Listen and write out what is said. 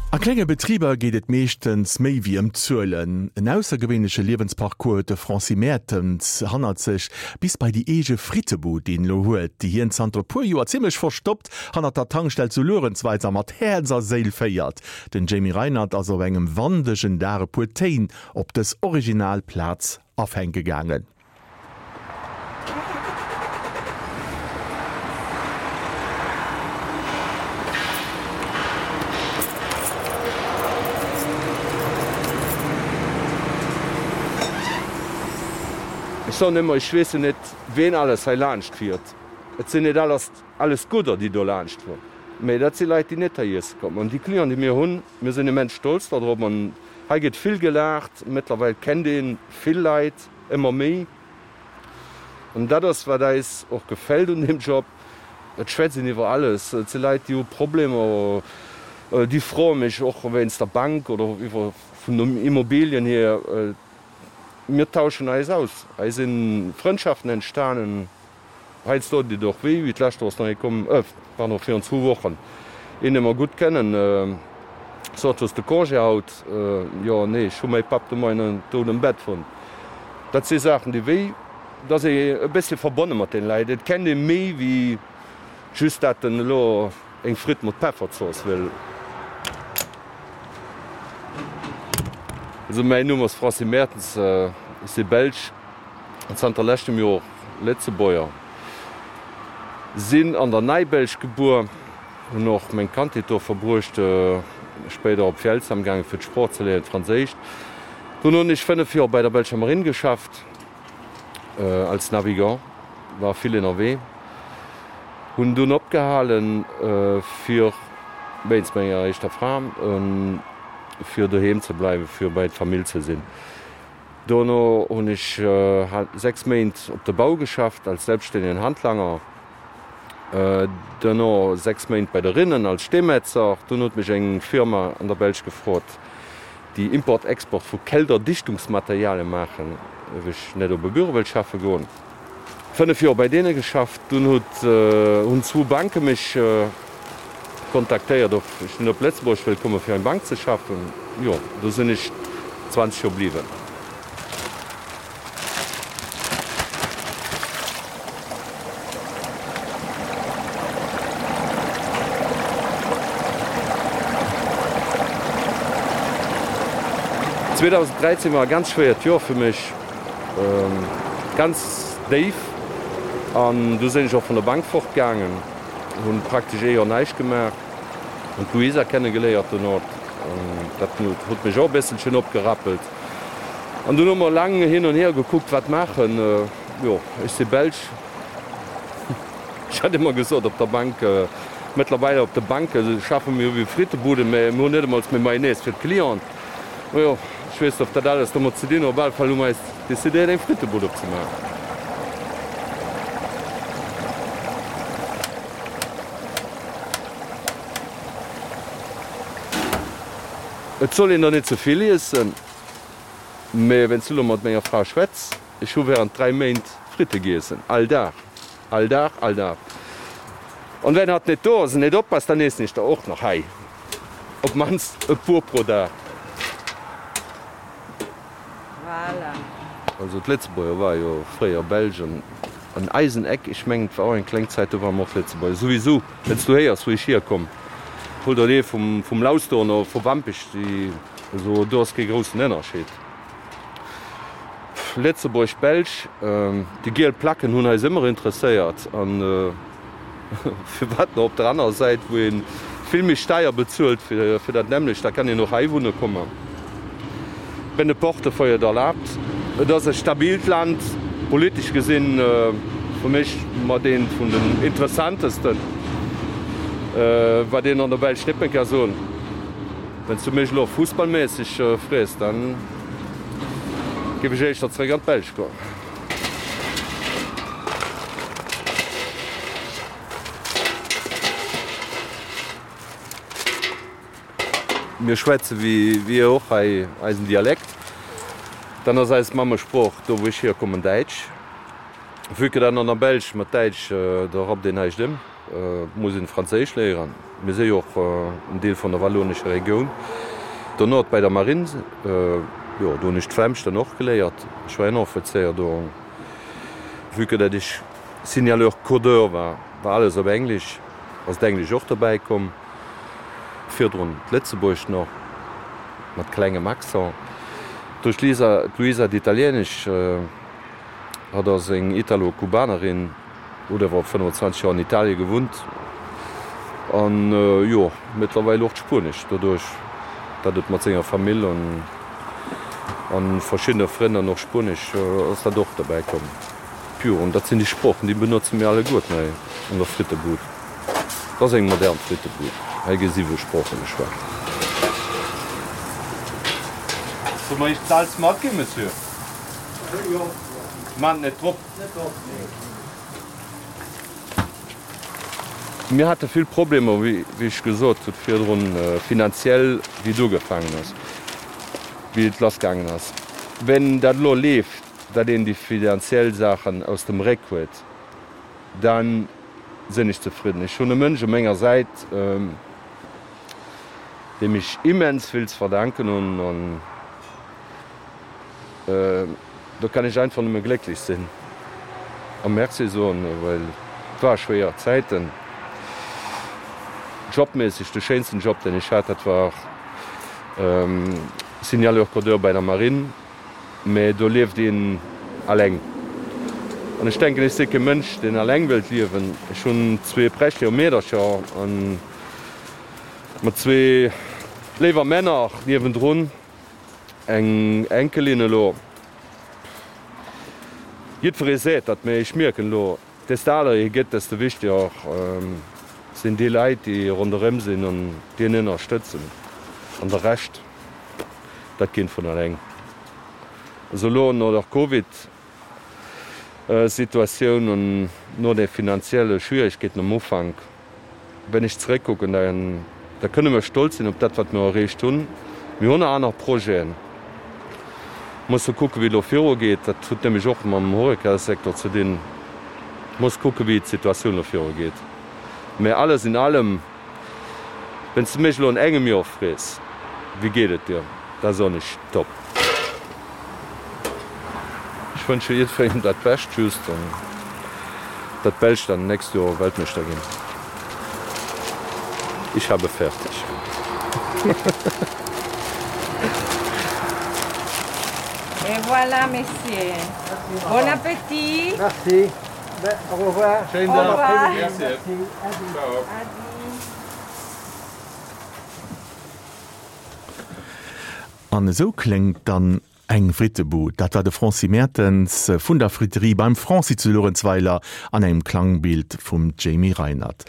A klenge Betriber geet et meeschtens méi wéi ëm d'Zuelen. En aussergewéinleche Liewensparcours huet de Francis Mertens hannert sech, bis bei déi eege Frittebud, déi en elo huet, déi hien zanter e puer Joer zimmlech verstoppt hannert der Tankstell zu Luerenzweiler mat Häerz a Séil féiert. Den Jamie Reinert ass op engem wandegen Dag e puer Téin op dës original Plaz afänke gaangen. Ech soen ëmmer, ech weess jo net, ween alles hei laanscht fiert. Et sinn net alles alles Gudder, déi do laanscht fueren, mee dat si Leit, déi net hei iesse kommen. An déi Clienten, déi mir hunn, mir sinn immens stolz dodrop. An hei gëtt vill gelaacht. Mëttlerweil kennt ee vill Leit. Ëmmer méi. An dat ass, wat eis och gefält un deem Job, Et schwätzt een iwwer alles. Et si Leit, déi hu Problemer, déi froe mech och wéinst der Bank oder iwwer vun den Immobilien hier. Mir tauschen eis aus. Hei si Frëndschaften entstanen. Heiansdo deet et och wéi, wéi d'lescht Woch ass nach ee komm, pardon, virun zwou Wochen, een dee mer gutt kennen, sot, Hues de Congé haut? Jo, nee, ech hu mäi Papp de Moien dout am Bett fonnt. Dat si Saachen, déi wéi, et ass ee e bëssche verbonne mat deene Leit, et kennt ee méi wéi just dat en elo eng Fritt mat Pefferzooss wëll. Also mäin Numm ass Francis Mertens, ech si Belsch. Zanter leschtem Joer Lëtzebuerger. Sinn an der Neibelsch gebuer, hunn och meng Kandheet do verbruecht, spéider op Vielzheim gaangen fir d'Sprooch ze léieren, d'Franséischt. Dono hunn ech 5 Joer bei der belscher Marine geschafft als Navigant, war vill ënnerwee. Hunn dunn opgehalen fir, wéinst menger éischter Fra, fir doheem ze bleiwen, fir bei d'Famill ze sinn. Dono hunn ech 6 Méint op de Bau geschafft als selbststännegen Handlanger, duerno 6 Méint bei de Rinnen als Steemetzer. Dunn huet mech eng Firma an der Belsch gefrot, déi Import-Export vu Kälterdichtungsmaterialien maachen, ob ech net op e Büro wëllt schaffe goen. 5 Joer bei deene geschafft. Dunn huet hunn zwou Banke mech kontaktéiert, ob ech net op Lëtzebuerg wëll komme fir eng Bank ze schaffen. Jo, do sinn ech 20 Joer bliwwen. 2013 war e ganz schwéiert Joer fir mech. Ganz déif an du sinn ech och vun der Bank fort gaangen, hunn praktesch ee Joer näischt gemaach, hunn d'Luisa kenne geléiert dono, dat huet mech och e bësselchen opgerappelt an dunn hu mer laang hin an hier gekuckt wat maachen. Jo, ech si Belsch, ech hat ëmmer gesot op der Bank, mëttlerweil op de Banke schaffe mir wéi Frittebuden, mä mir hunn net emol méi Mayonnaise fir d'Clienten. Majo, ech weess net, ob dat alles domat ze dinn huet. Op alle Fall hu mer eis decidéiert, eng Frittebud opzemaachen. Et soll een der net ze vill iessen, mee wéinst du elo mat menger Fra schwätz, ech hu während 3 Méint Fritte giessen, all Dag, all Dag, all Dag. An wenn hatt net do ass an net oppasst, dann iessen ech der och nach hei. Op mannst e puer pro Dag. Voilà. Also d'Lëtzebuerger ware jo fréier Belsch an an eisen Eck, ech mengen et war och eng kleng Zäit, do ware mer och Lëtzebuerger. Souwisou, wann s du héiers wou ech hierkomm, hol der dee vum vum Lausduer oder vu Wampech, déi, also do ass kee groussen Ënnerscheed. Lëtzebuerg, Belsch, déi giel Placken hunn eis ëmmer interesséiert an. Firwat net op der anerer Säit, wou ee vill méi Steier bezuelt fir dat nämmlecht? Da kann een och hei wunne kommen, wenn de Portefeuille et erlaabt. Et ass e stabilt Land, politesch gesinn fir mech mat eent vun den interessantesten, wat een an der Belsch net méi ka soen. Wann s du mech elo fussballméisseg frees, da géif ech éischter zeréck an d'Belsch goen. Mir schwätze wéi dir och hei eisen Dialekt. Dann ass eis Mammesprooch, do wou ech hierkommen, Däitsch. Vue que dat an der Belsch mat Däitsch, do rappt een näischt ëm. Muss een Franséisch léieren. Mir si jo och en Deel vun der wallonescher Regioun. Dono bei der Marine, jo do hunn ech d'Flämsch dann och geléiert. Ech war Ënneroffizéier do. Vue que dat ech Signaleur codeur war, war alles op Englesch, ass d'Englesch och dobäi komm. Virdrun d'Lëtzebuergescht nach mat klengem Accent. Duerch d'Lisa, d'Luisa d'Italienesch, hatt ass eng Italo-Kubanerin. Huet awer 25 Joer an Italie gewunnt an jo mëttlerweil och d'Spuenesch, doduerch datt et mat senger Famill an an verschiddene Frënn an och Spuenesch ass dat och derbäi komm. Jo an dat sinn déi Sproochen déi benotze mir alleguerten hei an der Frittebud. Et ass eng modern Frittebud, hei gi siwe Sprooche geschwat. Solle mer Iech d'Salz matginn, Monsieur? Maacht net drop. Mir hate vill Problemer, wéi ech gesot hutt virdrun, finanziell, wéi et ugefaangen ass, wéi et lassgaangen ass. Wenn dat elo leeft, datt een déi finanziell Saachen aus dem Réck huet, da sinn ech zefridden. Ech hunn e Mënsch u menger Säit, deem ech immens vill ze verdanken hunn. Do kann ech einfach nëmme glécklech sinn a Merci soen, well et war schwéier Zäiten. Jobméisseg, de schéinsten Job, deen ech hat, dat war Signaleur-Codeur bei der Marine, mä do lieft een alleng. An ech denken, ech si kee Mënsch, deen alleng wëllt liewen. Ech hunn zwee prächtege Meedercher a mat zwee léiwer Männer niewendrun. Eng Enkelin elo. Jiddweree seet dat, mee ech mierken elo, desto aler ee gëtt, desto wichteger sinn déi Leit, déi ronderëm sinn an déi een ënnerstëtzen. An de Rescht, dat geet vun alleng. Also elo no der Covid Situatioun an no de finanzielle Schwieregkeeten am Ufank, Wenn ech zeréckkucken, da kënne mer stolz sinn op dat, wat mer erreecht hunn. Mir hunn aner Projeten. Musse kucken, wéi et elo virugeet. Dat huet nämlech och mam Horeca-Secteur ze dinn. Muss kucken, wéi d'Situatioun elo virugeet. Mä alles in allem, wenn s de mech elo an engem Joer frees, Wéi geet et dir? da soen ech, Top. Ech wënsche jiddwerengem dat Bescht, just datt d'Belsch dann nächst Joer Weltmeeschter ginn. Ich habe fertig. Et voilà, messieurs. Bon appétit. Merci. Au revoir. Schéinen Dag. Au revoir. Merci. Ciao. Adi. An esou kléngt dann eng Frittebud. Dat war de Franci Mertens vun der Friterie beim Franci zu Luerenzweiler an engem Klangbild vum Jamie Reinert.